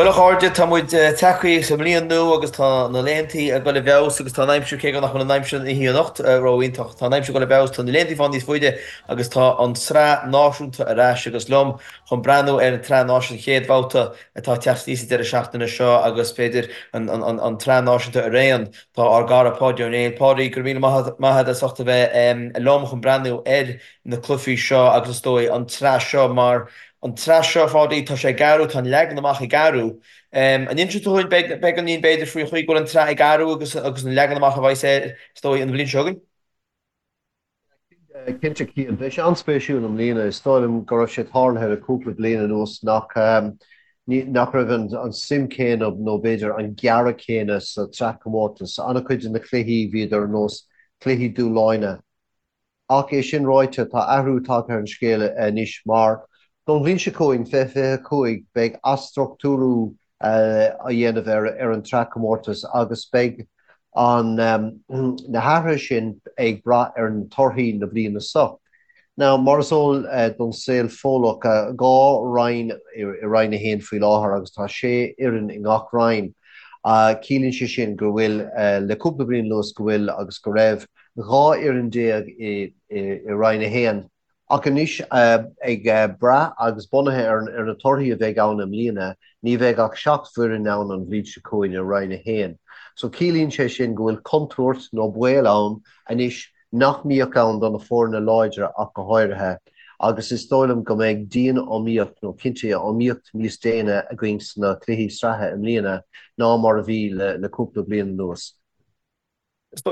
Bhuel a chairde, tá muid tagtha sa mbliain nua agus tá na laethantaí ag dul i bhfeabhas agus tá an aimsir, cé go nach bhfuil an aimsir an oíche anocht ró-iontach, tá an aimsir ag dul i bhfeabhas, tá na laethantaí ag fáil níos faide agus tá an tSraith Náisiúnta ar ais agus liom chun breathnú ar an tSraith Náisiúnta, an chéad bhabhta atá ag teacht aníos an deireadh seachtaine seo agus b'fhéidir an tSraith Náisiúnta araon, tá ár gcara Páidí Ó Néill. Páidí, go raibh míle maith agat as ucht a bheith liom chun breathnú ar na cluichí seo agus is dóigh an tsraith seo mar an tsraith seo, a Pháidí, tá sé ag athrú, tá an leagan amach ag athrú. An inseoidh tú dúinn beagáinín b'fhéidir faoi chaoi go bhfuil an tsraith ag athrú agus agus an leagan amach a bheidh air, is dóigh, an bhliain seo chugainn? Cinnte, Cian. Beidh sé an-spéisiúil i mbliana. Is dóigh liom go raibh sé tarlaithe le cúpla bliain anuas nach nach raibh an suim céanna nó b'fhéidir an gearradh céanna sa tsraithchomórtas. An-chuid de na cluichí bhíodar ar nós cluichí dúshláin. Ach é sin ráite, tá athrú tagtha ar an scéal anois mar, don bhliain seo chugainn, 2025, beidh athstruchtúrú á dhéanamh ar an tsraithchomórtas agus beidh an na hathruithe sin ag brath ar na torthaí na bliana seo. Now, mar is eol don saol Fódlach, 2 roinn i Roinn 1 faoi láthair agus tá 6 fhoireann i ngach roinn. Ciallaíonn sé sin go bhfuil, le cúpla bliain anuas, go bhfuil agus go raibh 12 fhoireann i Roinn 1, ach anois, ag brath agus bunaithe ar na torthaí a bheidh ann i mbliana, ní bheidh ach 7 bhfoireann ann an bhliain seo chugainn i Roinn 1. So ciallaíonn sé sin go bhfuil contúirt nó baol ann anois nach mbíodh ann do na foirne láidre ach go háirithe, agus is dóigh liom go mbeidh dian-iomaíocht nó cinnte iomaíocht níos déine againn sna cluichí sraithe i mbliana ná mar a bhí le cúpla bliain anuas.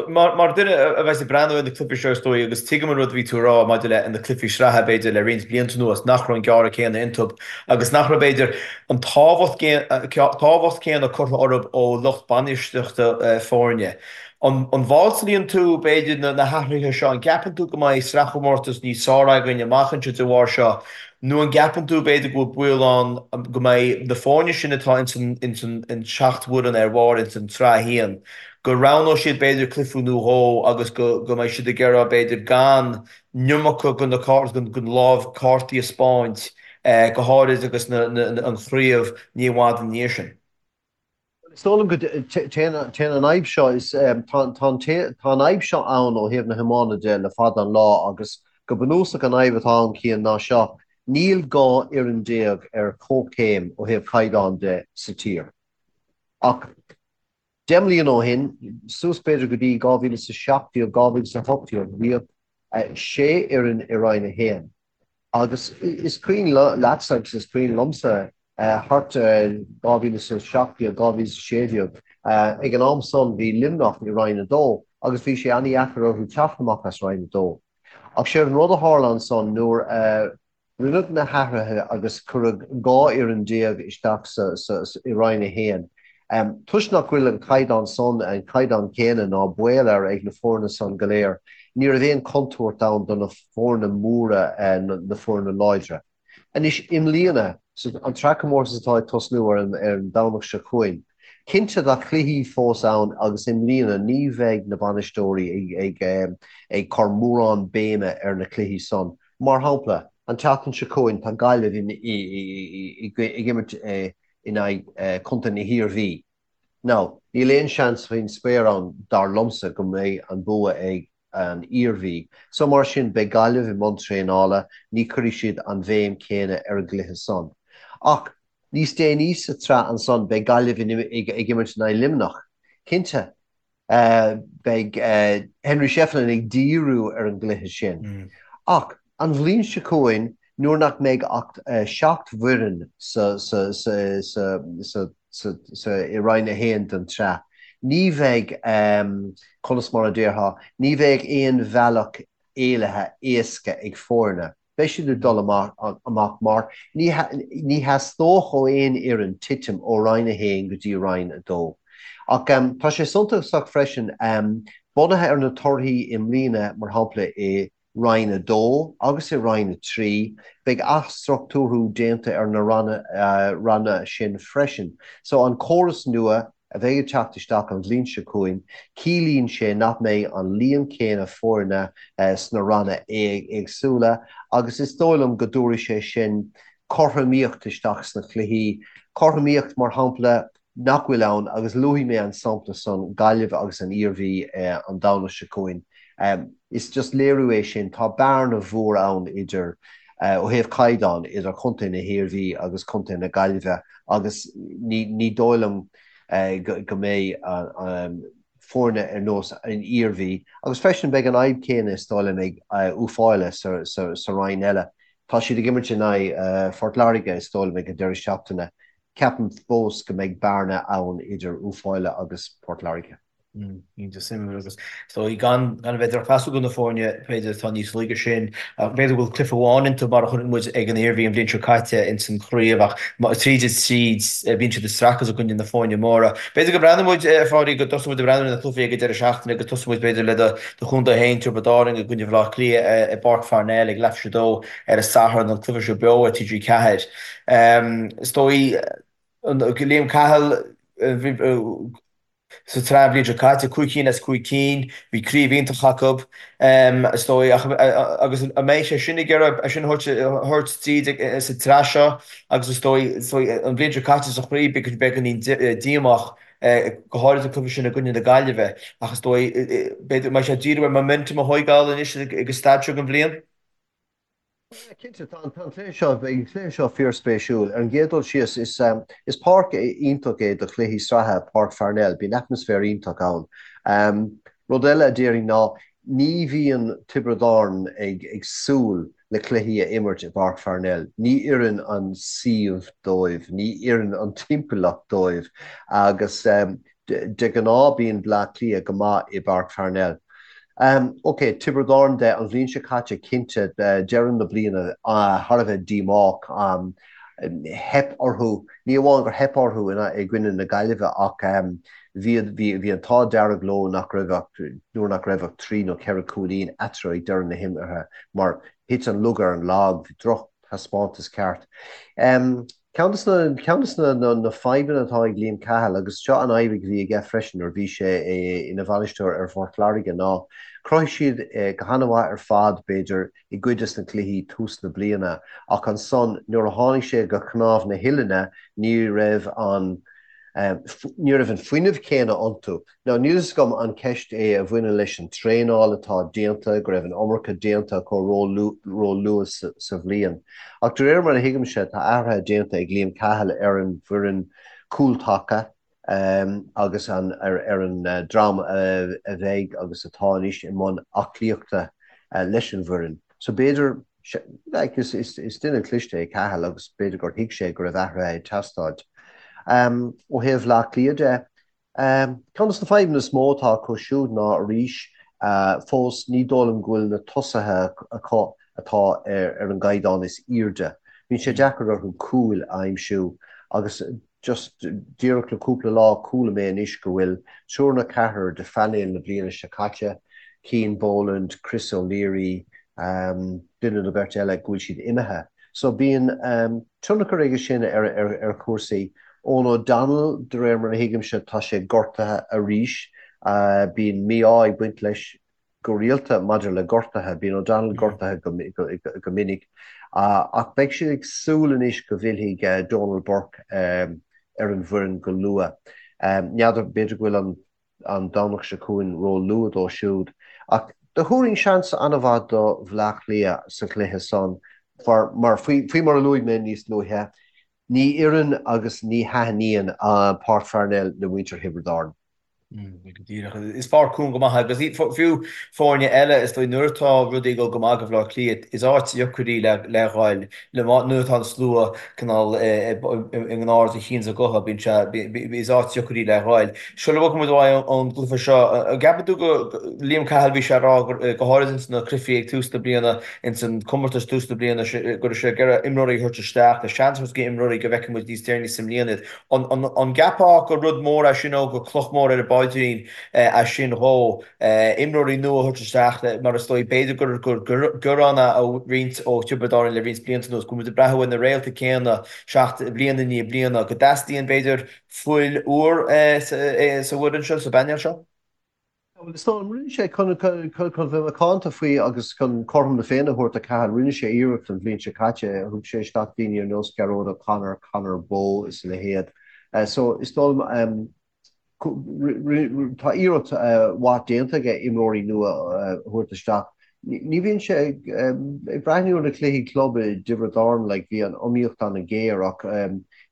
Mar dhuine a bheas ag breathnú ar na cluichí seo is dóigh, agus tuigim an rud a bhí tú a rá maidir le na cluichí sraithe b'fhéidir le roinnt blianta anuas, nach raibh an gearradh céanna iontu agus nach raibh b'fhéidir an tábhacht tábhacht céanna curtha orthu ó lucht bainistíochta foirne. An bhfáiltíonn tú b'fhéidir na hathruithe seo? An gceapann tú go mbeidh sraithchomórtas níos fearr againn amach anseo de bharr seo nó an gceapann tú b'fhéidir go bhfuil baol ann go mbeidh na foirne sin atá ins an seacht bhfoireann ar bharr ins an tsraith a haon, go roghnóidh siad b'fhéidir cluiche nó dhó agus go go mbeidh siad ag iarraidh b'fhéidir gan an iomarca de na den lámh cártaí a 'spáint, go háirid agus na an chraobh ní i bhfad ina dhiaidh sin. Is dóigh liom go téann an fhadhb seo is tá an tá an fhadhb seo ann ó thaobh na hiomána de le fada an lá agus go bunúsach an fhadhb atá ann Cian ná seo, níl 12 fhoireann ar comhchéim ó thaobh caighdeán de sa tír. Ach 10 mbliana ó shin, suas b'fhéidir go dtí 2017, 2018, bhíodh 6 fhoireann i Roinn 1 agus is cuimhin leatsa agus is cuimhin liomsa thart ar 2017, 2016, ag an am san bhí Luimneach i Roinn 2 agus bhí sé an-dheacair orthu teacht amach as Roinn 2. Ach séard an rud a tharla ansan nuair a Rinneadh na hathruithe agus cuireadh 12 fhoireann isteach i Roinn 1. Toisc nach bhfuil an caighdeán san, an caighdeán céanna ná baol air ag na foirne san go léir, ní raibh aon chontúirt ann do na foirne móra, na foirne láidre. Anois, i mbliana, an tsraithchomórtas atá ag tosnú ar an Domhnach seo chugainn, cinnte tá cluichí fós ann agus i mbliana ní bheidh na bainisteoirí ag cur mórán béime ar na cluichí san. Mar shampla, an tseachtain seo chugainn tá Gaillimh ag imirt in aghaidh Contae na hIarmhí. Now, níl aon seans faoin spéir ann, dar liomsa, go mbeidh an bua ag an Iarmhí. So mar sin, beidh Gaillimh i mbun traenála, ní chuirfidh siad an bhéim chéanna ar an gcluiche san. Ach níos déanaí sa tsraith ansan, beidh Gaillimh ag imirt in aghaidh Luimneach. Cinnte, Beidh Henry Shefflin ag díriú ar an gcluiche sin. Ach an bhliain seo chugainn, nuair nach mbeidh ach 7 bhfoireann sa i Roinn 1 den tsraith, ní bheidh, conas mar a déarfá, ní bheidh aon bhealach éalaithe éasca ag foirne. Beidh siad ag dul amach mar ní theastódh ó aon fhoireann titim ó Roinn 1 go dtí Roinn 2. Ach tá sé suntasach freisin, bunaithe ar na torthaí i mbliana, mar shampla i Roinn 2 agus i Roinn 3, beidh athstruchtúrú déanta ar na ranna sin freisin. So an córas nua, a bheidh ag teacht isteach an bhliain seo chugainn, ciallaíonn sé nach mbeidh an líon céanna foirne sna ranna éagsúla agus is dóigh liom go dtabharfaidh sé sin. cothromaíocht isteach sna cluichí, cothromaíocht mar shampla nach bhfuil ann agus luafaidh mé an sampla san, Gaillimh agus an Iarmhí an Domhnach seo chugainn. Is just léiriú é sin, tá bearna mhór ann idir, ó thaobh caighdeáin, idir contae na hIarmhí agus contae na Gaillimhe agus ní dóigh liom go mbeidh foirne ar nós an Iarmhí agus freisin beidh an fhadhb céanna is dóigh liom ag Uíbh Fhailí sa roinn eile. Tá siad ag imirt in aghaidh Phort Láirge is dóigh liom ag an deireadh seachtaine. Ceapaim fós go mbeidh bearna ann idir Uíbh Fhailí agus Port Láirge. Iontach suimiúil agus is dóigh gan a bheith drochmheasúil do na foirne b'fhéidir atá níos laige sin ach b'fhéidir go bhfuil cluiche amháin iontu mar a chonaic muid ag an Iarmhí an bhliain seo caite ins an chraobh ach tríd is tríd bíonn siad ag streachailt i gcoinne na foirne móra. B'fhéidir go mbreathnóidh muid, a Pháidí, go dtosóidh muid ag breathnú ar na cluichí ag an deireadh seachtaine agus tosóidh muid b'fhéidir le do chontae féin, Tiobraid Árann i gcoinne Bhaile Átha Cliath i bPáirc Pharnell ag leathuair tar éis a dó ar an Satharn, an cluiche seo beo ar TG4. Is dóigh, Liam Cahill, sa tsraith an bhliain seo caite, 5 cinn as 5 cinn, bhí craobh iontach acu, is dóigh, ach agus an mbeidh sé sin ag iarraidh é sin a thabhairt tríd sa tsraith seo agus is dóigh, is dóigh, an bhliain seo caite sa chraobh beagáinín díomách, go háirid an cluiche sin i gcoinne na Gaillimhe, ach is dóigh, b'fhéidir, an mbeidh sé ag díriú ar momentum a thóigeáil anois ag an staid seo den bhliain? Cinnte, tá an cluiche seo, beidh an cluiche seo fíorspéisiúil. Ar an gcéad dul síos, is is páirc iontach é do chluichí sraithe, Páirc Pharnell, bíonn atmaisféar iontach ann. Rud eile a déarfainn ná ní bhíonn Tiobraid Árann ag ag súil le cluichí a imirt i bPáirc Pharnell. Ní oireann an suíomh dóibh, ní oireann an timpeallacht dóibh agus De ghnáth bíonn Bleá Cliath go maith i bPáirc Pharnell. Ok, Tiobraid Árann de, an bhliain seo caite, cinnte, deireadh na bliana thar a bheith díomách. Theip orthu, ní amháin gur theip orthu i gcoinne na Gaillimhe ach bhí bhí an t-ádh dearg leo nach raibh ach, nuair nach raibh ach 3 nó 4 cúilín eatarthu ag deireadh na himeartha mar thit an lug ar an lag, bhí drochthaispeántas ceart. Ceann de ceann de na fadhbanna atá ag Liam Cahill, agus seo an fhadhb a bhí aige freisin nuair a bhí sé ina bhainisteoir ar Phort Láirge, ná chruthaigh siad go han-mhaith ar fad, b'fhéidir, i gcuid de na cluichí tús na bliana, ach ansan nuair a tháinig sé go cnámh na huillinne ní raibh an ní raibh an fuinneamh céanna iontu. Now, níl fhios agam an ceist é a bhaineann leis an traenáil atá déanta, go raibh an iomarca déanta acu ró-luath sa bhliain. Ach de réir mar a thuigimse, tá athruithe déanta ag Liam Cahill ar an bhfoireann cúltaca agus ar an dream a bheidh agus atá anois i mbun aclaíochta leis an bhfoireann. So b'fhéidir, like, is duine cliste é Cahill agus b'fhéidir gur thuig sé go raibh athruithe ag teastáil. Ó thaobh Bhaile Átha Cliath de, Ceann de na fadhbanna is mó atá acu siúd ná arís, fós, ní dóigh liom go bhfuil na tosaithe acu atá ar an gcaighdeán is airde. Bíonn sé deacair orthu cúil a aimsiú agus just díreach le cúpla lá chuala mé anois go bhfuil triúr nó ceathrar de phainéal na bliana seo caite, Cian Boland, Chris O'Leary, duine nó beirt eile, go bhfuil siad imithe. So bíonn tionchar aige sin ar chúrsaí. Eoghan O'Donnell, de réir mar a thuigimse, tá sé gortaithe arís. Bíonn mí-ádh ag baint leis go rialta maidir le gortuithe. Bíonn O'Donnell gortaithe go minic. Ach beidh siad ag súil anois go bhfillfidh Donal Burke ar an bhfoireann go luath. N'fheadar, b'fhéidir go bhfuil an an Domhnach seo chugainn ró-luath dó siúd. Ach do thabharfainn seans an-mhaith do Bhleá Cliath sa chluiche san mar, faoi mar a luaigh mé níos luaithe, ní oireann agus ní thaitníonn Páirc Pharnell le muintir Thiobraid Árann. Go díreach. Is páirc cúng go maith agus fiú foirne eile, is dóigh, nuair atá rudaí ag dul go maith do Bhaile Átha Cliath, is áit dheacair í le ghoil le nuair atá an slua cineál i ngnár a chinn is a gutha, bíonn sé, is áit dheacair í le ghoil. Sula bhfágfaidh muid uaidh ón gcluiche seo, an gceapann tú go, Liam Cahill, bhí sé ag rá go háirid ins na cluichí ag tús na bliana, ins an comórtas tús na bliana, go raibh sé ag iarraidh imreoirí a thabhairt isteach, le seans a thabhairt do imreoirí go bhfeicfidh muid níos deireanaí sa mbliain iad. An gceapfá gur rud mór é sin nó gur cloch mhór ar an bpaidrín é sin dhó, imreoirí nua a thabhairt isteach mar is dóigh, b'fhéidir gur gearán é ó roinnt ó Thiobraid Árann le roinnt blianta anuas, go bhfuil muid ag breathnú ar na réalta céanna bliain i ndiaidh bliana, go dteastaíonn, b'fhéidir, fuil úr sa bhfoireann seo, sa bpainéal seo? Bhuel, is dóigh liom, rinne sé, chun bheith macánta faoi agus chun cothrom na Féinne a thabhairt do Cathal, rinne sé iarracht an bhliain seo caite, thug sé isteach daoine ar nós Gearóid O'Connor, Conor Bowe is a leithéid. So, is dóigh liom, tá iarracht mhaith déanta aige imreoirí nua a thabhairt isteach. Ní bhíonn sé ag breathnú ar na cluichí club i dTiobraid Árann, like, bhí an iomaíocht an-ghéar ach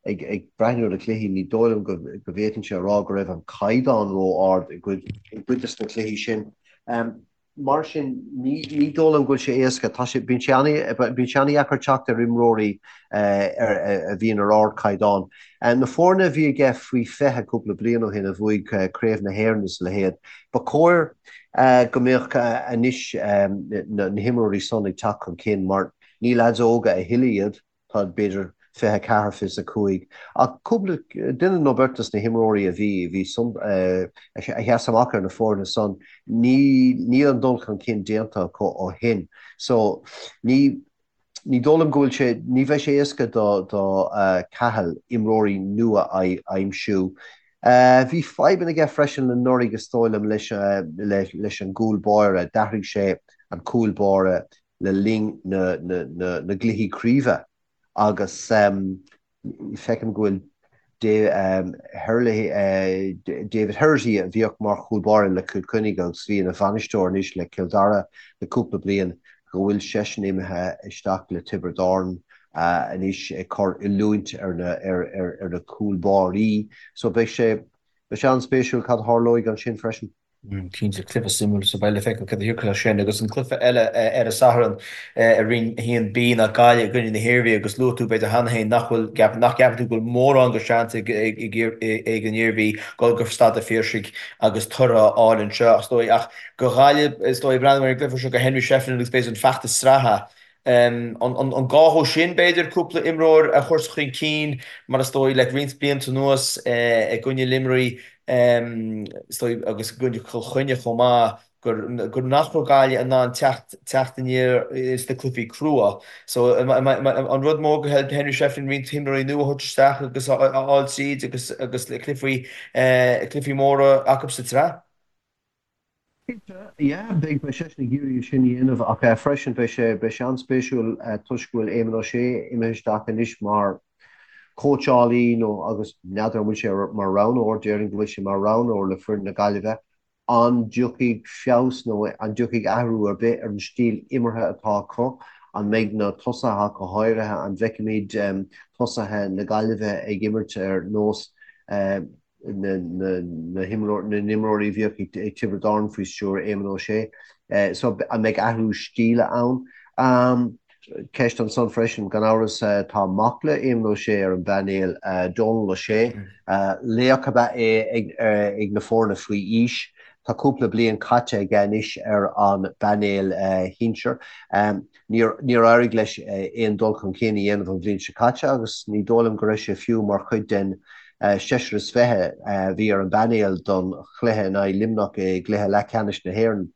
ag breathnú ar na cluichí ní dóigh liom go bhféadfainnse a rá go raibh an caighdeán ró-ard i gcuid de na cluichí sin. Mar sin ní dóigh liom go bhfuil sé éasca. Tá sé, bíonn sé an-dheacair teacht ar imreoirí a bhíonn ar ardchaighdeán. Na foirne a bhí aige faoi 20 cúpla bliain ó shin a bhuaigh Craobh na hÉireann is a leithéid, ba chóir go mbeadh anois na himreoirí san ag teacht chun cinn mar ní leaids óga a thuilleadh iad, tá b'fhéidir 24, 25, ach cúpla duine nó beirt dos na himreoirí a bhí, bhí a sheas amach ar na foirne san, ní, níl an dul chun cinn déanta acu ó shin. So ní, Ní dóigh liom go bhfuil sé, ní bheidh sé éasca do Cathal imreoirí nua a aimsiú. Bhí fadhbanna aige freisin anuraidh is dóigh liom leis leis an gcúl báire, d'athraigh sé an cúl báire le linn na gcluichí craoibhe agus Feicim go bhfuil David Herity, a bhíodh mar chúl báire le Cill Chainnigh agus a bhí ina bhainisteoir anois le Cill Dara le cúpla bliain, go bhfuil seisean imithe isteach le Tiobraid Árann anois ag cur oiliúint ar na cúl báirí. So beidh sé an-spéisiúil cad a tharlóidh ansin freisin. Cinnte, cluiche suimiúil so beidh le feiceáil cad a thiocfadh as sin. Agus an cluiche eile ar an Satharn i Roinn 1B ná Gaillimh i gcoinne na hIarmhí agus luaigh tú b'fhéidir cheana féin nach bhfuil, nach gceapann tú go bhfuil mórán de sheans ag an Iarmhí dul go Staid an Phiarsaigh agus toradh a fháil anseo is dóigh. Ach do Ghaillimh is dóigh, breathnú ar an gcluiche seo do Henry Shefflin agus b'fhéidir an feachtas sraithe An gá dhó sin, b'fhéidir, cúpla imreoir a chur chun cinn, mar is dóigh, le roinnt blianta anuas i gcoinne Luimnigh, is dóigh, agus i gcoinne Chill Chainnigh chomh maith, gur nach raibh Gaillimh in ann teacht teacht aniar sna cluichí crua. So, an rud mór do Henry Shefflin roinnt imreoirí nua a thabhairt isteach agus a fháil tríd agus agus cluichí cluichí móra acu sa tsraith? Cinnte, yeah, beidh seisean ag iarraidh é sin a dhéanamh ach freisin beidh sé, beidh sé an-spéisiúil toisc go bhfuil Éamon Ó Sé imithe isteach anois mar chóitseálaí nó agus n'fheadar an bhfuil sé mar roghnóir, déarfainn go bhfuil sé mar roghnóir le foireann na Gaillimhe, an dtiocfaidh feabhas nó an dtiocfaidh athrú ar bith ar an stíl imeartha atá acu, an mbeidh na tosaithe ach go háirithe, an bhfeicfimid tosaithe na Gaillimhe ag imirt ar nós na n-imreoirí a bhíodh ag Tiobraid Árann faoi stiúir Éamon Ó Sé. So an mbeidh athrú stíle ann? Ceist ansan freisin, gan amhras, tá mac le Éamon Ó Sé ar an bpainéal, Dónal Ó Sé. Laoch ab ea é ag na foirne faoi aois. Tá cúpla bliain caite aige anois ar an bpainéal shinsir. Níor éirigh leis aon dul chun cinn a dhéanamh an bhliain seo caite agus ní dóigh liom go raibh sé fiú mar chuid den seisear is 20 a bhí ar an bpainéal don chluiche in aghaidh Luimneach i gcluiche leathcheannais na hÉireann.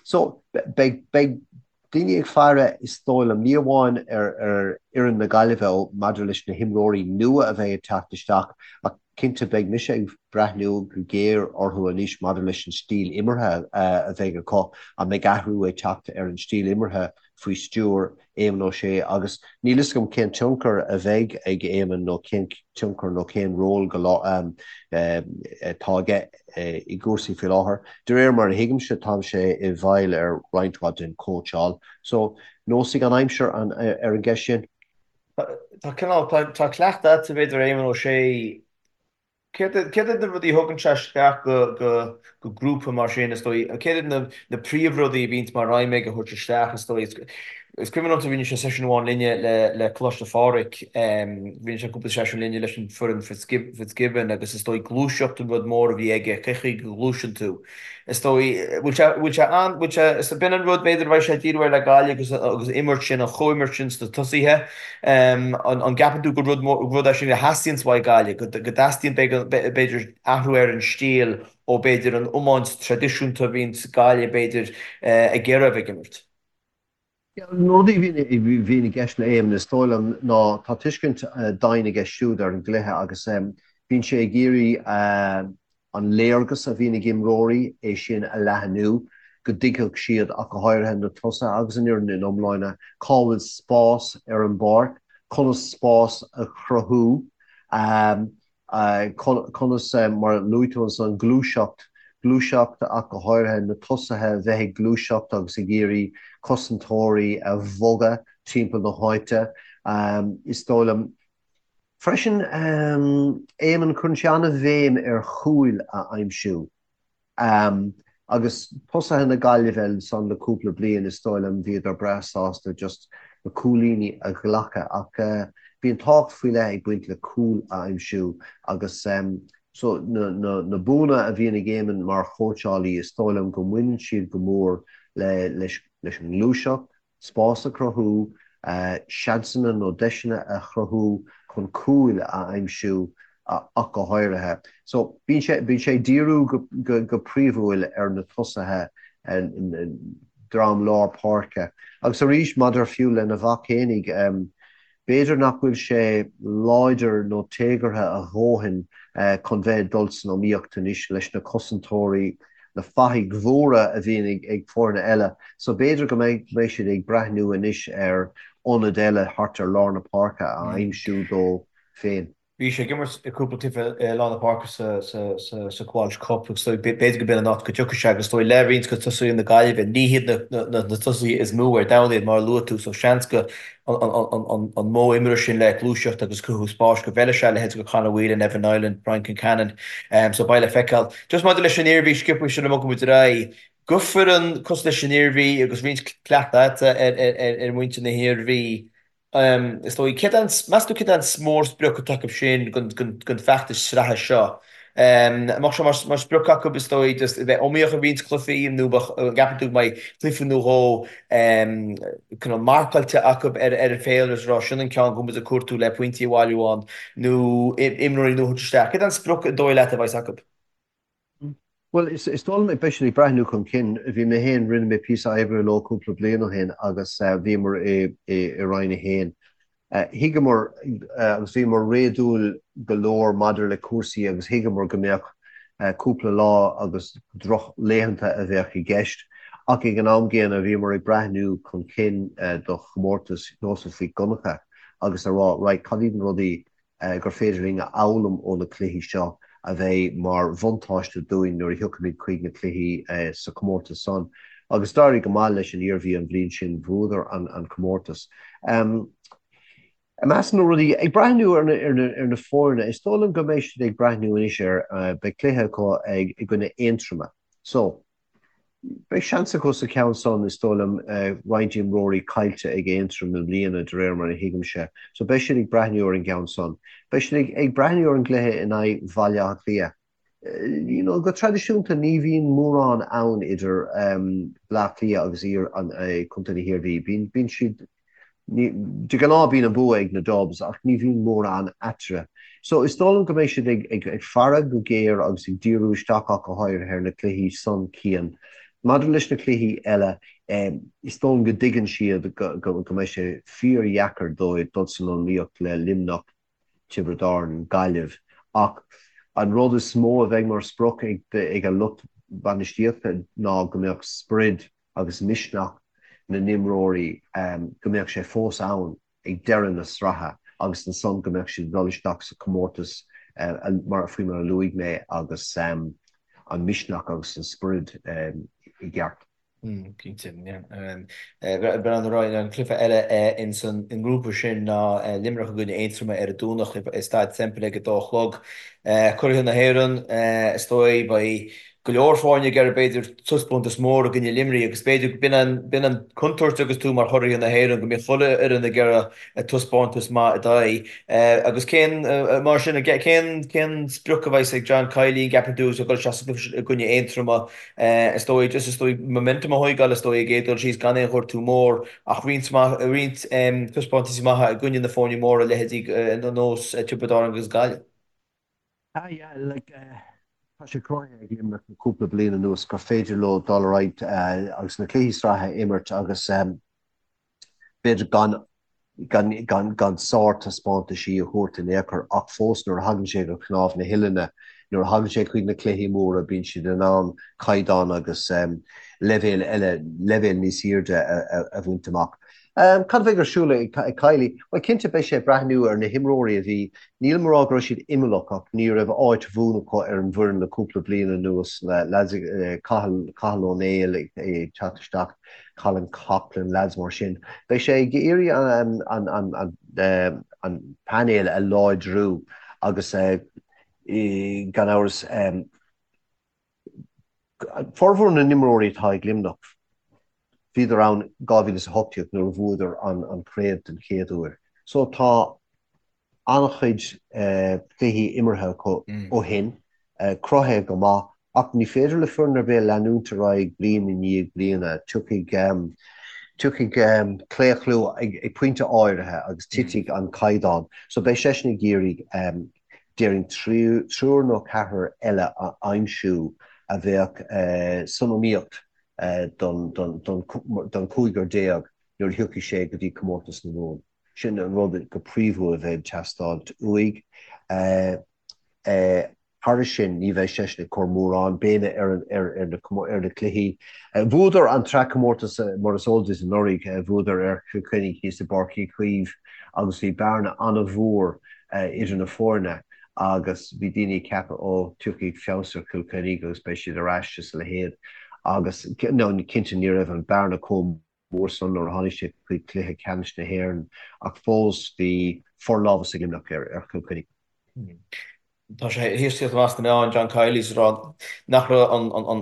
So, beidh daoine ag faire, is dóigh liom, ní amháin ar fhoireann na Gaillimhe maidir leis na himreoirí nua a bheidh ag teacht isteach ach Cinnte, beidh mise ag breathnú go géar orthu anois maidir leis an stíl imeartha a bheidh acu. An mbeidh athrú ag teacht ar an stíl imeartha faoi stiúir Éamon Ó Sé? Agus níl fhios agam cén tionchar a bheidh ag Éamon nó cén tionchar nó cén ról go atá aige i gcúrsaí faoi láthair. De réir mar a thuigimse, tá sé i bhfeighil ar roinnt mhaith den chóitseáil. So, neosfaidh an aimsir ar an gceist sin. Tá cineál, tá cleachtadh agat b'fhéidir ar Éamon Ó Sé. Céard iad na rudaí a thugann sé isteach go grúpa mar sin, is dóigh? Céard iad na príomhrudaí a bhíonns mar aidhm aige a thabhairt isteach, is dóigh? Is cuimhin liomsa rinne sé seisiún amháin linne le Coláiste Phádraig, rinne sé cúpla seisiún linne leis an foireann Fitzgibbon agus is dóigh gluaiseacht an rud mór a bhí aige, cé chaoi go ngluaiseann tú. Is dóigh, bhfuil sé, bhfuil sé an, bhfuil sé, is b'in an rud b'fhéidir a bheidh sé ag díriú air le Gaillimh agus, agus imirt sin, an chomhimirt sin sna tosaithe. An, an gceapann tú gur rud mór, rud é sin a theastaíonns uaidh Gaillimh, go, go dteastaíonn b'fhéidir athrú ar an stíl ó b'fhéidir an iomáint traidisiúnta a bhíonns Gaillimh b'fhéidir ag iarraidh a bheith ag imirt? Na rudaí a bhíonn i gceist le Éamon, is dóigh liom, ná tá tuiscint doimhin aige siúd ar an gcluiche agus bíonn sé ag iarraidh. An léargas a bhíonn ag imreoirí, é sin a leathnú, go dtuigfeadh siad, ach go háirithe na tosaithe agus an fhoireann ina iomláine, cá bhfuil spás ar an bpáirc, conas spás a chruthú, conas, mar a luaigh tú ansan, gluaiseacht, gluaiseacht ach go háirithe na tosaithe a bheith ag gluaiseacht agus ag iarraidh cosantóirí a bhogadh timpeall na háite. Is dóigh liom. Freisin, Éamonn, cuireann sé an-bhéim ar chúil a aimsiú. Agus tosaithe na Gaillimhe ansan le cúpla bliain, is dóigh liom, bhíodar breá sásta just na cúilíní a ghlacadh. Ach bíonn tábhacht faoi leith ag baint le cúl a aimsiú agus so na buanna a bhíonn ag Éamonn mar chóitseálaí, is dóigh liom go mbaineann siad go mór leis an ngluaiseacht, spás a chruthú, seansanna nó deiseanna a chruthú chun cúil a aimsiú ach go háirithe. So, bíonn sé, bíonn sé ag díriú go, go príomhúil ar na tosaithe, dream lár páirce. Agus arís, maidir fiú lena mhac fhéinig, B'fhéidir nach bhfuil sé láidir nó téagartha a dhóthain chun bheith ag dul san iomaíocht anois leis na cosantóirí, na fathaigh mhóra a bhíonn ag foirne eile. So b'fhéidir go mbeidh siad ag breathnú anois ar ionad eile thart ar lár na páirce a aimsiú dó féin. Bhí sé ag imirt i cúpla cluiche i lár na páirce sa Walsh Cup agus b'fhéidir go b'in an áit go dtiocfaidh sé agus is dóigh le roinnt de tosaithe na Gaillimhe, ní hiad na tosaithe is mó ar domhan iad mar a luaigh tú so seans go an modh imeartha sin le gluaiseacht agus cruthú spáis go bhfeilfidh sé a leithéid de Conor Whelan, Evan Niland, Brian Concannon so beidh le feiceáil. Just maidir leis an Iarmhí sciobtha sula mbogann muid ar aghaidh, do foireann cosúil leis an Iarmhí agus roinnt cleachtadh ar mhuintir na hIarmhí Is dóigh, céard é an, meas tú céard é an mórsprioc atá acu sin don feachtas sraithe seo? An mbeadh sé mar sprioc acu, is dóigh, just a bheith iomaíoch i roinnt cluichí nó an gceapann tú go mbeidh cluiche nó dhó cineál marcáilte acu ar an féilire is a rá sin an ceann go bhfuil muid ag cuartú le pointí a bhailiú ann nó imreoirí nua a thabhairt isteach? Céard é an sprioc an dóigh leat a bheas acu? Bhuel, is dóigh liom, beidh siad ag breathnú chun cinn. Bhí mé féin, rinne mé píosa oibre leo cúpla bliain ó shin agus bhíomar i Roinn 1. Thuigeamar agus bhíomar réadúil go leor maidir le cúrsaí agus thuigeamar go mbeadh cúpla lá agus drochlaethanta a bheadh i gceist ach ag an am gcéanna bhíomar ag breathnú chun cinn do chomórtas Sheosaimh Mhic Dhonncha agus a rá right, cad iad na rudaí gur féidir linn a fhoghlaim ó na cluichí seo a bheidh mar bhuntáiste dúinn nuair a thiocfaimid chuig na cluichí sa chomórtas san. Agus d'éirigh go maith leis an Iarmhí an bhliain sin, bhuadar an comórtas. I measc na rudaí, ag breathnú ar na foirne, is dóigh liom go mbeidh siad ag breathnú anois ar, beidh cluiche acu i gcoinne Aontroma. So, Beidh seans acu sa cheann san, is dóigh liom, roinnt imreoirí caillte ag Aontroim i mbliana, de réir mar a thuigimse, so beidh siad ag breathnú ar an gceann san. Beidh siad ag breathnú ar an gcluiche in aghaidh Bhaile Átha Cliath. You know, go traidisiúnta ní bhíonn mórán ann idir Bleá Cliath agus Contae na hIarmhí. Bíonn siad De ghnáth bíonn an bua ag na Dubs ach ní bhíonn mórán eatarthu. So is dóigh liom go mbeidh siad ag faire go géar agus ag díriú isteach ach go háirithe ar na cluichí san, Cian. Maidir leis na cluichí eile, is dóigh liom go dtuigeann siad go mbeidh sé fíordheacair dóibh dul san iomaíocht le Luimneach, Tiobraid Árann, Gaillimh ach an rud is mó a bheidh mar sprioc ag an lucht bainistíochta ná go mbeadh sprid agus misneach na n-imreoirí, go mbeadh sé fós ann ag deireadh na sraithe agus ansan go mbeadh siad ag dul isteach sa chomórtas mar faoi mar a luaigh mé agus an misneach agus an sprid i gceart. Cinnte, yeah. Breathnú ar aghaidh, an cluiche eile ins an ngrúpa sin ná Luimneach i gcoinne Aontroma ar an Domhnach i Staid Semple ag a dó a chlog. Curaithe na hÉireann, is dóigh, beidh go leor foirne ag iarraidh b'fhéidir taispeántas mór i gcoinne Luimnigh agus b'fhéidir b'in an b'in an contúirt agus tú mar churaithe na hÉireann go mbíonn chuile fhoireann ag iarraidh taispeántas maith i d'aghaidh. Agus cén mar sin cén cén sprioc a bheas ag John Kiely an gceapann tú agus ag dul isteach sa gcluiche sin i gcoinne Aontroma is dóigh just is dóigh momentum a thóigeáil is dóigh ag iarraidh dul síos gan aon ghortú mór ach roinnt maith roinnt taispeántaisí maithe i gcoinne na foirne móra leithéidí ar nós Tiobraid Árann agus Gaillimh. Ah yeah, like, tá sé cruthaithe ag Luimneach le cúpla bliain anuas gur féidir leo dul ar aghaidh agus na cluichí sraithe a imirt agus b'fhéidir gan gan gan gan sártaispeántaisí a thabhairt in aon chor ach fós nuair a thagann sé go cnámh na huillinne. nuair a thagann sé chuig na cluichí móra bíonn siad in ann caighdeán agus leibhéal eile, leibhéal níos airde a bhaint amach. Cad a bheidh ar siúl ag Kiely? Bhuel, cinnte beidh sé ag breathnú ar na himreoirí a bhí, nílim ag rá go raibh siad imeallach ach ní raibh áit bhuan acu ar an bhfoireann le cúpla bliain anuas, leaids, Cathal, Cathal Ó Néill ag teacht isteach, Colin Coughlan, leaids mar sin. Beidh sé ag iarraidh an, an, an, an, an painéal a láidriú agus gan amhras, Formhór na n-imreoirí atá ag Luimneach, bhíodar ann 2018 nuair a bhuadar an chraobh den chéad uair. So tá an-chuid cluichí imeartha acu ó shin, cruthaithe go maith, ach ní féidir le foireann ar bith leanúint ar aghaidh bliain i ndiaidh bliana. Tiocfaidh tiocfaidh claochlú ag pointe áirithe agus titfidh an caighdeán. So beidh seisean ag iarraidh déarfainn triúr nó ceathrar eile a aimsiú a bheadh san iomaíocht don chúigear nuair a thiocfaidh sé go dtí comórtas na Mumhan. Sin an rud go príomhúil a bheidh ag teastáilt uaidh. Thairis sin, ní bheidh seisean ag cur mórán béime ar na cluichí. Bhuadar an tsraithchomórtas, mar is eol duit, anuraidh. Bhuadar ar Chill Chainnigh thíos i bPáirc Uí Chaoimh agus bhí bearna an-mhór idir na foirne agus bhí daoine ag ceapadh, ó, tiocfaidh feabhas ar Chill Chainnigh agus beidh siad ar ais is a leithéid. Agus, no, cinnte ní raibh an bearna chomh mór san nuair a tháinig sé chuig cluiche ceannais na hÉireann ach fós bhí forlámhas ag Luimneach ar Chill Chainnigh. Tá sé théis tíocht amach sna meáin, John Kiely, ag rá nach raibh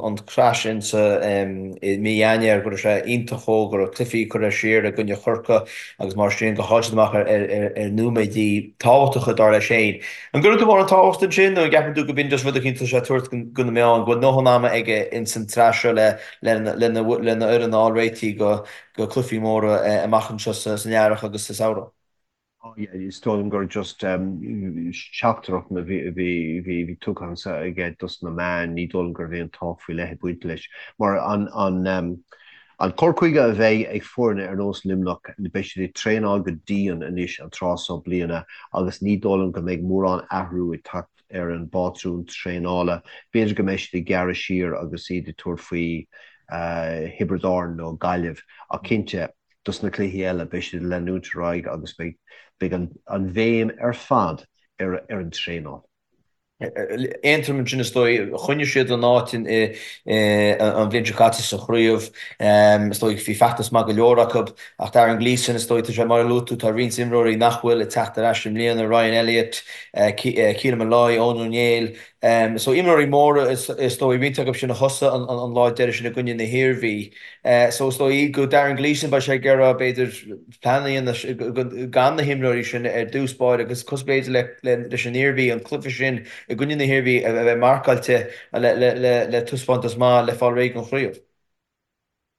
an crash sin sa i mí Eanáir, go raibh sé iontach dhó, go raibh cluichí curtha siar i gcoinne Chorcaí agus mar sin, gur chaill siad amach ar nóiméidí tábhachtacha dar leis féin. An gcuireann tú mórán tábhacht ansin nó an gceapann tú go b'in just rud eicínt atá sé ag tabhairt go na meáin, go bhfuil ndóthain ama aige ins an tsraith seo le lena fhoireann a fháil réitithe go cluichí móra amach anseo san earrach agus sa samhradh. Is dóigh liom gur just teachtaireacht a bhí tugtha anso aige dos na meáin, ní dóigh liom go raibh aon tábhacht faoi leith ag baint leis. Mar an cur chuige a bheidh ag foirne ar nós Luimneach, beidh siad ag traenáil go dian anois an tráth so bliana agus ní dóigh liom go mbeidh mórán athrú ag teacht ar an bpátrún traenála. B'fhéidir go mbeidh siad ag gearradh siar agus iad ag tabhairt faoi Thiobraid Árann nó Gaillimh ach cinnte, dos na cluichí eile, beidh siad ag leanúint ar aghaidh agus beidh an bhéim ar fad ar an traenáil. Aontroim ansin is dóigh. Choinnigh siad a n-áit an bhliain seo caite sa chraobh. Is dóigh bhí feachtas maith go leor acu. Ach Darren Gleeson, is dóigh, tá sé mar a luaigh tú, tá roinnt imreoirí nach bhfuil ag teacht ar ais i mbliana, Ryan Elliott, Keelan Molloy, Eoin Ó Néill. So imreoirí móra is dóigh, roinnt acu sin a thosaigh an lá deiridh sin i gcoinne na hIarmhí. So is dóigh go Darren Gleeson beidh sé ag iarraidh b'fhéidir plean a dhéanamh gan na himreoirí sin ar dtús báire agus cosúil b'fhéidir leis an Iarmhí, an cluiche sin i gcoinne na hIarmhí a bheith marcáilte le taispeántas maith le fáil réidh don chraobh.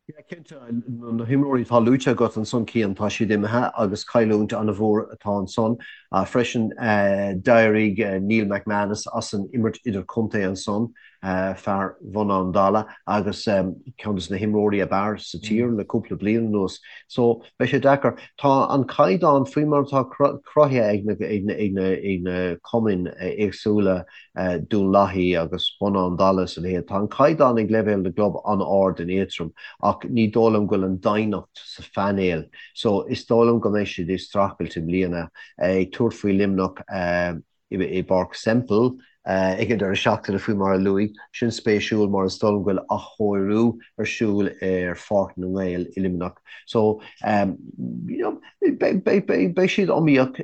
Yeah, cinnte, na himreoirí atá luaite agat ansan, Cian, tá siad imithe agus cailliúint an-mhór atá ansan. Freisin, d'éirigh Neil McManus as an imirt idirchontae ansan, fear Bhun Abhann Dalla agus ceann de na himreoirí ab fhearr sa tír le cúpla bliain anuas. So, beidh sé deacair. Tá an caighdeán faoi mar atá cruthaithe ag na cumainn éagsúla, Dún Lathaí agus Bun Abhann Dalla is a leithéid. Tá an caighdeán ag leibhéal na gclub an-ard in Aontroim ach ní dóigh liom go bhfuil an doimhneacht sa phainéal so is dóigh liom go mbeidh siad ag streachailt i mbliana, ag tabhairt faoi Luimneach i bPáirc Semple ag an deireadh seachtaine faoi mar a luaigh. Sin spéisiúil mar is dóigh liom go bhfuil athchóiriú ar siúl ar Pháirc na nGael i Luimneach so you know Beidh siad iomaíoch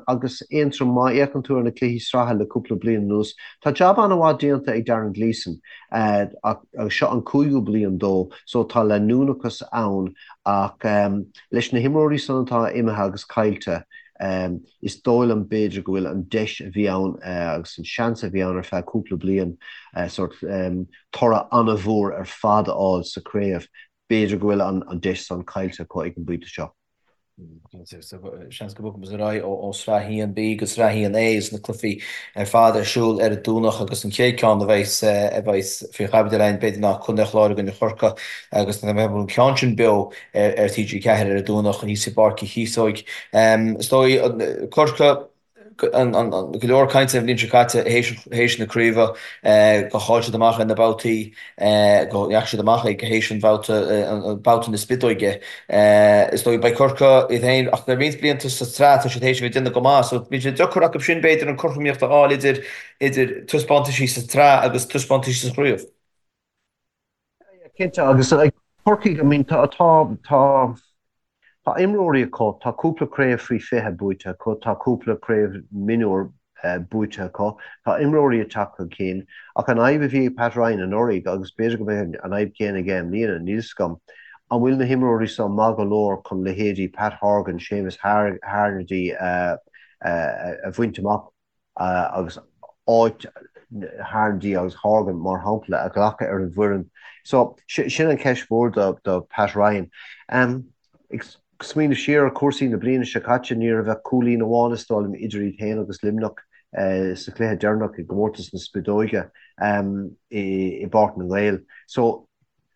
agus Aontroim má fhéachann tú ar na cluichí sraithe le cúpla bliain anuas. Tá jab an-mhaith déanta ag Darren Gleeson agus seo an cúigiú bliain dó so tá leanúnachas ann ach leis na himreoirí san atá imithe agus caillte is dóigh liom b'fhéidir go bhfuil an deis a bhí ann agus an seans a bhí ann ar feadh cúpla bliain sórt toradh an-mhór ar fad a fháil sa chraobh B'fhéidir go bhfuil an deis san caillte acu ag an bpointe seo. Seans go mbogfaidh muid ar aghaidh ó Sraith 1B go Sraith 1A agus na cluichí ar fad ar siúl ar an Domhnach agus an chéad ceann a bheas a bheas faoi chaibidil againn b'fhéidir ná Contae an Chláir i gcoinne Chorcaí agus beidh an ceann sin beo ar TG4 ar an Domhnach thíos i bPáirc Uí Chíosóig. Is dóigh Corcaigh. Go leor cainte an bhliain seo caite théis na craoibhe, gur chaill siad amach ar na babhtaí, go ndeachaigh siad amach ag théis an bhabhta, babhta na spideoige. Is dóigh beidh Corcaigh iad féin, ach le roinnt blianta sa tsraith tá siad théis a bheith ag déanamh go maith, so bíonn sé deacair acu sin b'fhéidir an cothromaíocht a fháil idir idir taispeántaisí sa tsraith agus taispeántaisí sa chraobh. Cinnte, agus Corcaigh, I mean, tá, tá, tá, tá imreoirí acu, tá cúpla craobh faoi 20 buaite acu, tá cúpla craobh mionúr buaite acu, tá imreoirí ag teacht chun cinn, ach an fhadhb a bhí ag Pat Ryan anuraidh, agus b'fhéidir go mbeidh an fhadhb chéanna aige i mbliana, níl 'fhios agam, an bhfuil na himreoirí seo maith go leor chun leithéidí Pat Horgan, Séamus Harnedy a bhaint amach? agus áit Harnedy agus Horgan, mar shampla, a ghlacadh ar an bhfoireann. So, sin an cheist mhór do Pat Ryan. Ag smaoineamh siar ar chúrsaí na bliana seo caite, ní raibh ach cúilín amháin, is dóigh liom, idir iad féin agus Luimneach sa chluiche deireanach i gcomórtas na Spideoige i bPáirc na nGael. So,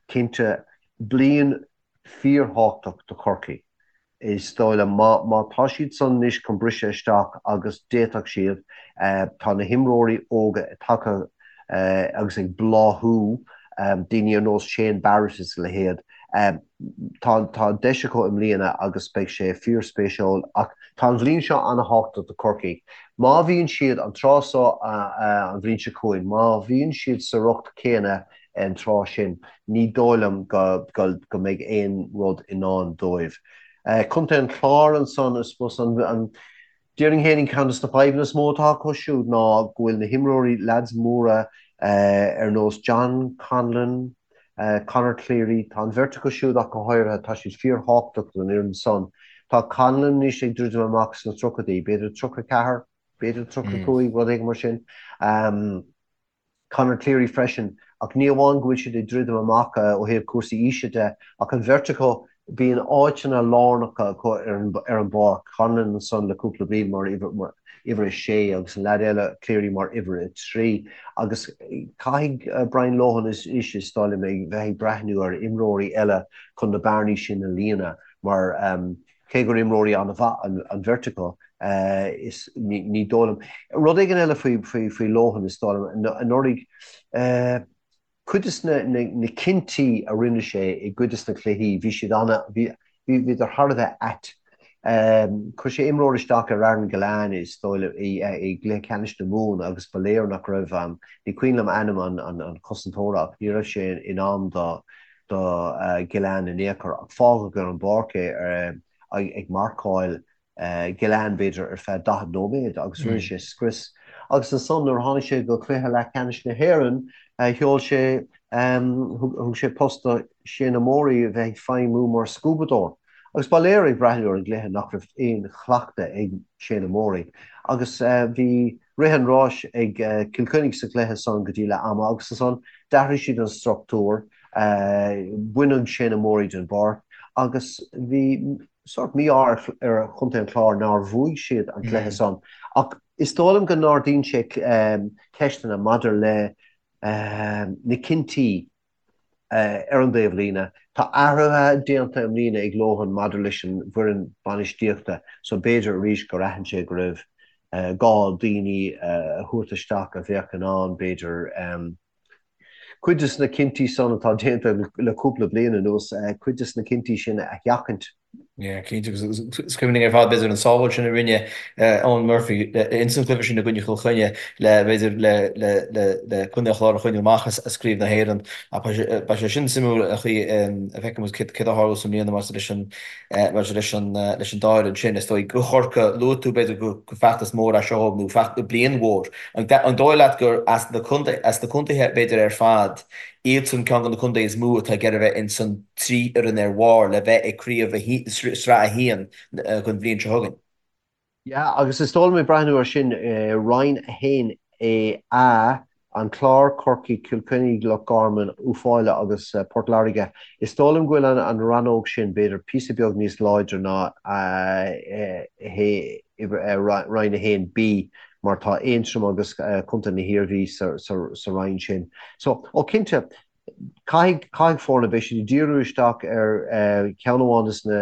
cinnte, bliain fíorthábhachtach do Chorcaigh. Is dóigh liom, má, má tá siad san anois chun briseadh isteach, agus d'fhéadfadh siad, tá na himreoirí óga tagtha agus ag bláthú, daoine ar nós Shane Barrett is a leithéid, tá, tá deis acu i mbliana agus beidh sé fíorspéisiúil. Ach tá an bhliain seo ana-thábhachtach do Chorcaigh. Má bhíonn siad, an tráth seo an bhliain seo chugainn, má bhíonn siad sa riocht céanna an tráth sin, ní dóigh liom go mbeidh aon rud i ndán dóibh. Contae an Chláir ansan, I suppose, an, déarfainn fhéinig ceann de na fadhbanna is mó atá acu siúd ná go bhfuil na himreoirí, leaids móra ar nós John Conlon, Conor Cleary, tá an bheirt acu siúd ach go háirithe, tá siad fíorthábhachtach don fhoireann san. Tá Conlon anois ag druidim amach sna tríochaidí, b'fhéidir 34, b'fhéidir 35, rud éigin mar sin. Conor Cleary freisin, ach ní amháin go bhfuil siad ag druidim amach ó thaobh cúrsaí aoise de, ach an bheirt acu, bíonn áiteanna lárnacha acu ar an bpáirc, Conlon ansan le cúpla bliain mar uimhir a sé agus an leaid eile, Cleary, mar uimhir a trí. Agus caithfidh Brian Lohan anois, is dóigh liom, bheith ag breathnú ar imreoirí eile chun na bearnaí sin a líonadh mar Cé gur imreoirí an-mhaith an bheirt acu, is ní dóigh liom. Rud éigin eile faoi Lohan, is dóigh liom, anuraidh, cuid de na cinntí a rinne sé i gcuid de na cluichí, bhí siad ana, bhíodar thar a bheith ait. Chuir sé imreoir isteach ar Aaron Gillane, is dóigh liom, i gcluiche ceannais na Mumhan agus ba léir nach raibh, ní cuimhin liom ainm an chosantóra ach ní raibh sé in am do do Gillane in aon chor ach fágadh ar an bpáirc é ag marcáil Gillane b'fhéidir ar feadh 40 nóiméad agus rinne sé scrios. Agus ansan nuair a tháinig sé go cluiche leathcheannais na hÉireann sheol sé, thug sé post do Shane Morey a bheith ag feidhmiú mar scuabadóir. Agus ba léir ag breathnú ar an gcluiche nach raibh aon chleachtadh ag Shane Morey agus bhí rith an ráis ag Cill Chainnigh sa chluiche san go dtí leath ama agus ansan d'athraigh siad an struchtúr, baineadh Shane Morey den bpáirc agus bhí sórt mí-ádh ar Chontae an Chláir nár bhuaigh siad an cluiche san. Ach is dóigh liom go n-ardaíonn sé ceisteanna maidir le na cinntí Ar an dtaobhlíne, tá athruithe déanta i mbliana ag Lohan maidir leis an bhfoireann bainistíochta so b'fhéidir arís gur aithin sé go raibh gá daoine a thabhairt isteach a bheadh in ann, b'fhéidir, cuid de na cinntí san atá déanta le cúpla bliain anuas, cuid de na cinntí sin a sheachaint. Yeah, cinnte, agus is cuimhin linn ar fad, b'fhéidir, an sábháil sin a rinne Eoin Murphy ins an gcluiche sin i gcoinne Chill Chainnigh le, b'fhéidir, le, le, le, le Contae an Chláir a choinneáil amach as Craobh na hÉireann. Ach beidh sé, beidh sé sin suimiúil an chaoi a bhfeicfidh muid céard a tharlós i mbliana maidir leis an, maidir leis an, leis an dá fhoireann sin. Is dóigh do Chorcaigh, luaigh tú, b'fhéidir, gur feachtas mór é seo dóibh nó feachtas, bliain mhór. An dóigh leat gur as na contae, as na contaetha, b'fhéidir, ar fad, iadsan ceann de na contaetha is mó atá ag iarraidh a bheith ins an 3 fhoireann ar bharr le bheith ag craobh sraith 1 don bhliain seo chugainn. Yeah, agus is dóigh liom ag breathnú air sin, Roinn 1A, A, An Clár, Corcaigh, Cill Chainnigh, Loch Garman, Uíbh Fhailí agus Port Láirge, is dóigh liom go bhfuil an rannóg sin b'fhéidir píosa beag níos láidre ná Roinn 1B mar tá Aontroim agus Contae na hIarmhí sa roinn sin. So, ó cinnte, Caithfidh, caithfidh foirne, beidh siad ag díriú isteach ar cheann amháin de na,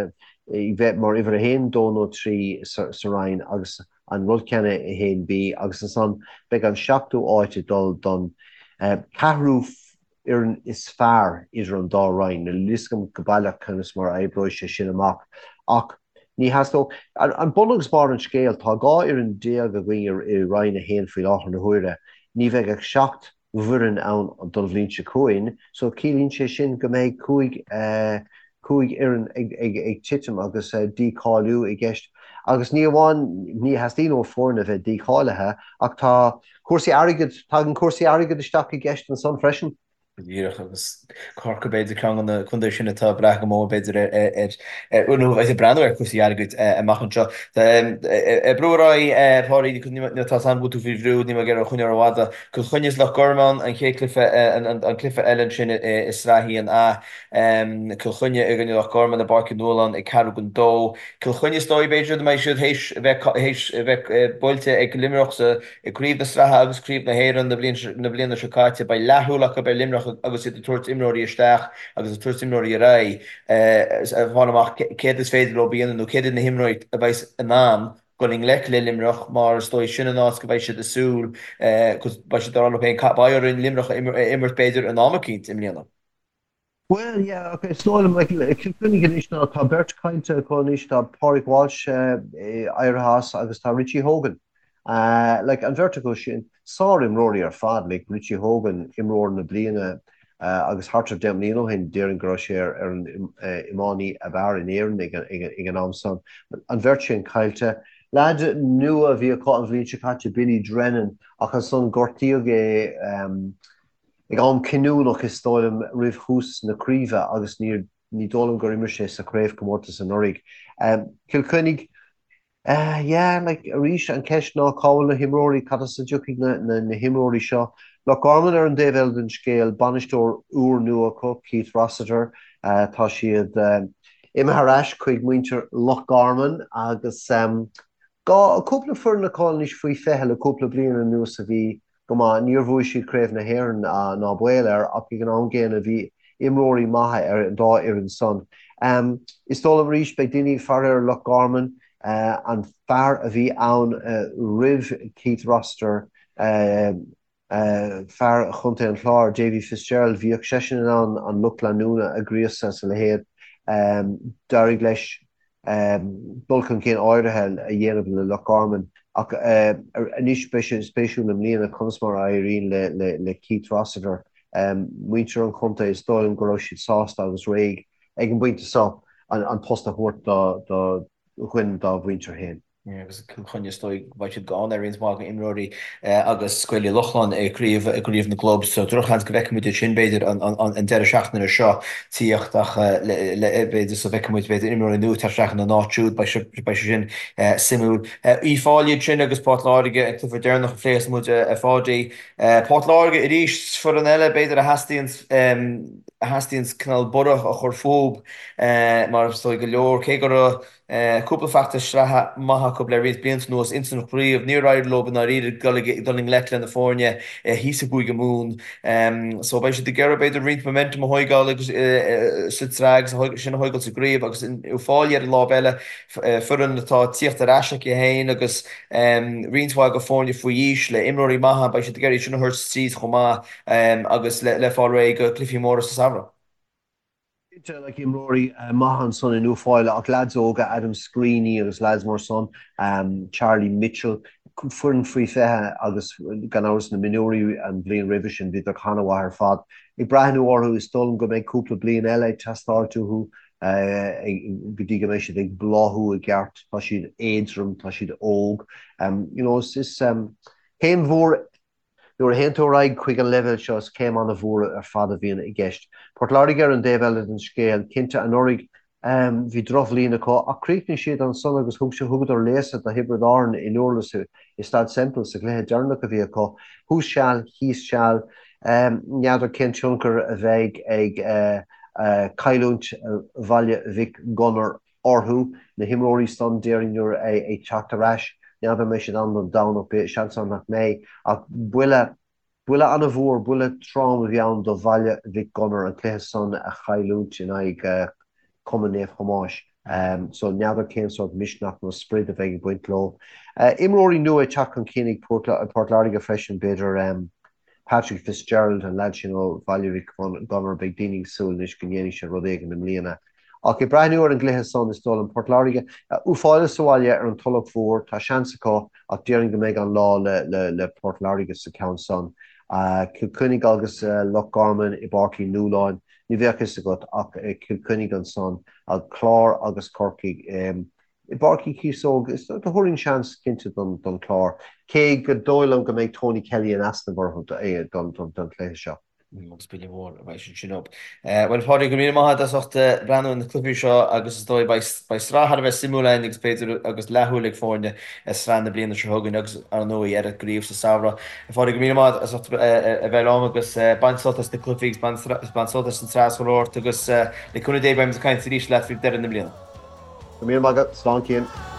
bheith mar uimhir a haon, dó nó trí sa roinn agus. An rud céanna i 1B agus ansan beidh an seachtú áit ag dul don ceathrú fhoireann is fearr idir an dá roinn. Níl a fhios agam go baileach conas mar a oibreoidh sé sin amach ach ní theastódh. An bun agus barr an scéil, tá 12 fhoireann againn i Roinn 1 faoi láthair na huaire. Ní bheidh ach 7 bhfoireann ann don bhliain seo chugainn so ciallaíonn sé sin go mbeidh 5 fhoireann ag titim agus dícháiliú i gceist. Agus ní amháin, ní theastaíonn ó foirne a bheith dícháilithe ach tá cúrsaí airgid, tagann cúrsaí airgid isteach i gceist ansan freisin. Go díreach, agus Corcaigh b'fhéidir ceann de na contaetha sin atá ag brath go mór b'fhéidir ar, nó a bheidh ag breathnú ar chúrsaí airgid amach anseo. Ag brú ar aghaidh, a Pháidí, tá a fhios agam go bhfuil tú faoi bhrú, níl mé ag iarraidh choinneáil rófhada. Cill Chainnigh is Loch Garman, an chéad cluiche, an cluiche eile ansin i Sraith 1A. Cill Chainnigh i gcoinne Loch Garman i bPáirc Uí Nualláin ag ceathrú don dó. Cill Chainnigh is dóigh b'fhéidir go mbeidh siad théis a bheith théis a bheith buailte ag Luimneach sa i gCraobh na Sraithe agus Craobh na hÉireann na bliain na bliana seo caite. Beidh leathshúil acu ar Luimneach agus iad ag tabhairt imreoirí isteach agus ag tabhairt imreoirí ar aghaidh ag fáil amach céard is féidir leo a dhéanamh nó céard iad na himreoirí a bheas in ann dul i ngleic le Luimneach mar is dóigh sin an áit go mbeidh siad ag súil go beidh siad ag rá leo féin beidh orainn Luimneach a imirt b'fhéidir in am eicínt i mbliana. Bhuel, yeah, ok, is dóigh liom, like, Cill Chainnigh anois ná tá beirt caillte acu anois, tá Pádraig Walsh éirithe as agus tá Richie Hogan. Like, an bheirt acu sin, sár-imreoirí ar fad, like, Richie Hogan, imreoir na bliana agus thart ar 10 mbliana ó shin, déarfainn go raibh sé ar an iománaí ab fhearr in Éirinn ag an am san. An bheirt sin caillte. Leaid nua a bhí acu an bhliain seo caite, Billy Drennan, ach ansan gortaíodh é, Ag am cinniúnach, is dóigh liom, roimh thús na craoibhe agus ní dóigh liom gur imir sé sa chraobhchomórtas anuraidh. Cill Chainnigh, yeah, like, arís, an cheist ná cá bhfuil na himreoirí, cad as a dtiocfaidh na himreoirí seo? Loch Garman ar an dtaobh eile den scéal, bainisteoir úrnua acu, Keith Rossiter, tá siad imithe ar ais chuig muintir Loch Garman agus cúpla foireann acu anois faoi 20 le cúpla bliain anuas a bhí go maith. Níor bhuaigh siad Craobh na hÉireann ná baol air ach ag an am gcéanna bhí imreoirí maithe ar an dá fhoireann san. Is dóigh liom arís beidh daoine ag faire ar Loch Garman, an fear a bhí ann roimh Keith Rossiter, fear Chontae an Chláir, Davy Fitzgerald, bhíodh seisean in ann an lucht leanúna a ghríosadh is a leithéid. D'éirigh leis dul chun cinn áirithe a dhéanamh le Loch Garman ach anois beidh sé spéisiúil i mbliana conas mar a éiríonn le Keith Rossiter. Muintir an chontae, is dóigh liom go raibh siad sásta agus réidh ag an bpointe seo an post a thabhairt do dhuine dá mhuintir féin. Agus Cill Chainnigh is dóigh go mbeidh siad gann ar roinnt mhaith d'imreoirí agus Gaeil Uí Lochlainn i gcraobh i gcraobh na gclub so drochsheans go bhfeicfidh muid iad sin b'fhéidir an an deireadh seachtaine seo tíocht ach le le b'fhéidir so bhfeicfidh muid b'fhéidir imreoirí nua teacht isteach ina n-áit siúd beidh sé beidh sé sin suimiúil. Uíbh Fhailí ansin agus Port Láirge an cluiche deireanach a phléas muid a Pháidí. Port Láirge arís foireann eile b'fhéidir a theastaíonn a theastaíonn cineál borradh a chur fúb mar is dóigh go leor cé go raibh Cúpla feachtas sraithe maith acu le roinnt blianta anuas ins an chraobh. Níor éirigh leo i ndáiríre dul i ngleic le na foirne thíos i gCúige Mumhan. So beidh siad ag iarraidh b'fhéidir roinnt momentum a thóigeáil agus sa tsraith agus sin a thóigeáil sa gcraobh agus Uíbh Fhailí ar an lámh eile, foireann atá ag tíocht ar ais aici féin agus roinnt mhaith de foirne faoi aois le imreoirí maithe, beidh siad ag iarraidh sin a thabhairt tríd chomh maith agus le fáil réidh do chluichí móra sa samhradh. Cinnte, like, imreoirí maithe ansan in Uíbh Fhailí ach leaids óga, Adam Screeney agus leaids mar san, Charlie Mitchell, foireann faoi 20 agus gan amhras na mionúirí an bhliain roimhe sin, bhíodar an-mhaith ar fad. Ag breathnú orthu, is dóigh liom go mbeidh cúpla bliain eile ag teastáilt uathu go dtí go mbeidh siad ag bláthú i gceart. Tá siad éadrom, tá siad óg. You know, is céim mhór Nuair a théann tú ar aghaidh chuig an leibhéal seo, is céim an-mhór ar fad a bhíonn i gceist. Port Láirge ar an dtaobh eile den scéal, cinnte, anuraidh bhí drochbhliain acu ach chríochnaigh siad ansan agus thug thugadar léasadh do Thiobraid Árann i nDurlas i Staid Semple sa chluiche deireanach a bhí acu. Thuas seal, thíos seal, n'fheadar cén tionchar a bheidh ag cailliúint Bhaile Mhic Gonair orthu, na himreoirí san, déarfainn, nuair ag teacht ar ais. N'fheadar an mbeidh siad ann don Domhnach, seans ann nach mbeidh, ach buille, buille an-mhór, buille trom a bhí ann do Bhaile Mhic Gonair an cluiche san a chailliúint in aghaidh Cumann Naomh Thomáis. So n'fheadar cén sórt misneach nó sprid a bheidh ag baint leo. Imreoirí nua ag teacht chun cinn ag Port Láirge freisin, b'fhéidir Patrick Fitzgerald, an leaid sin ó Bhaile Mhic Gonair, beidh daoine ag súil anois go ndéanfaidh sé rud éigin i mbliana. Ach ag breathnú ar an gcluiche san, is dóigh liom Port Láirge, Uí Fáile sa bhaile ar an Tulach Mhór, tá seans acu ach déarfainn go mbeidh an lá le Port Láirge sa cheann san. Cill Chainnigh agus Loch Garman i bPáirc Uí Nualláin, ní bheadh fhios agat ach Cill Chainnigh ansan, an Clár agus Corcaigh i bPáirc Uí Chíosóg. Is thabharfainn seans cinnte don Chlár, cé gur dóigh liom go mbeidh Tony Kelly in easnamh orthu don chluiche seo. Agus buille mór a bheidh sin sin orthu. Bhuel, a Phádraig, go raibh míle maith agat as ucht breathnú ar na cluichí seo agus is dóigh beidh sraith thar a bheith suimiúil againn agus b'fhéidir agus leathshúil ag foirne ar sraith na bliana seo chugainn agus ar ndóigh ar an gcraobh sa samhradh. A Phádraig, go raibh míle maith agat as ucht a bheith liom agus bain sult as na cluichí agus bain sult as an tsraith is chuile shórt agus le cúnamh Dé beimid ag caint arís leat faoi dheireadh na bliana. Go raibh míle maith agat. Slán Cian.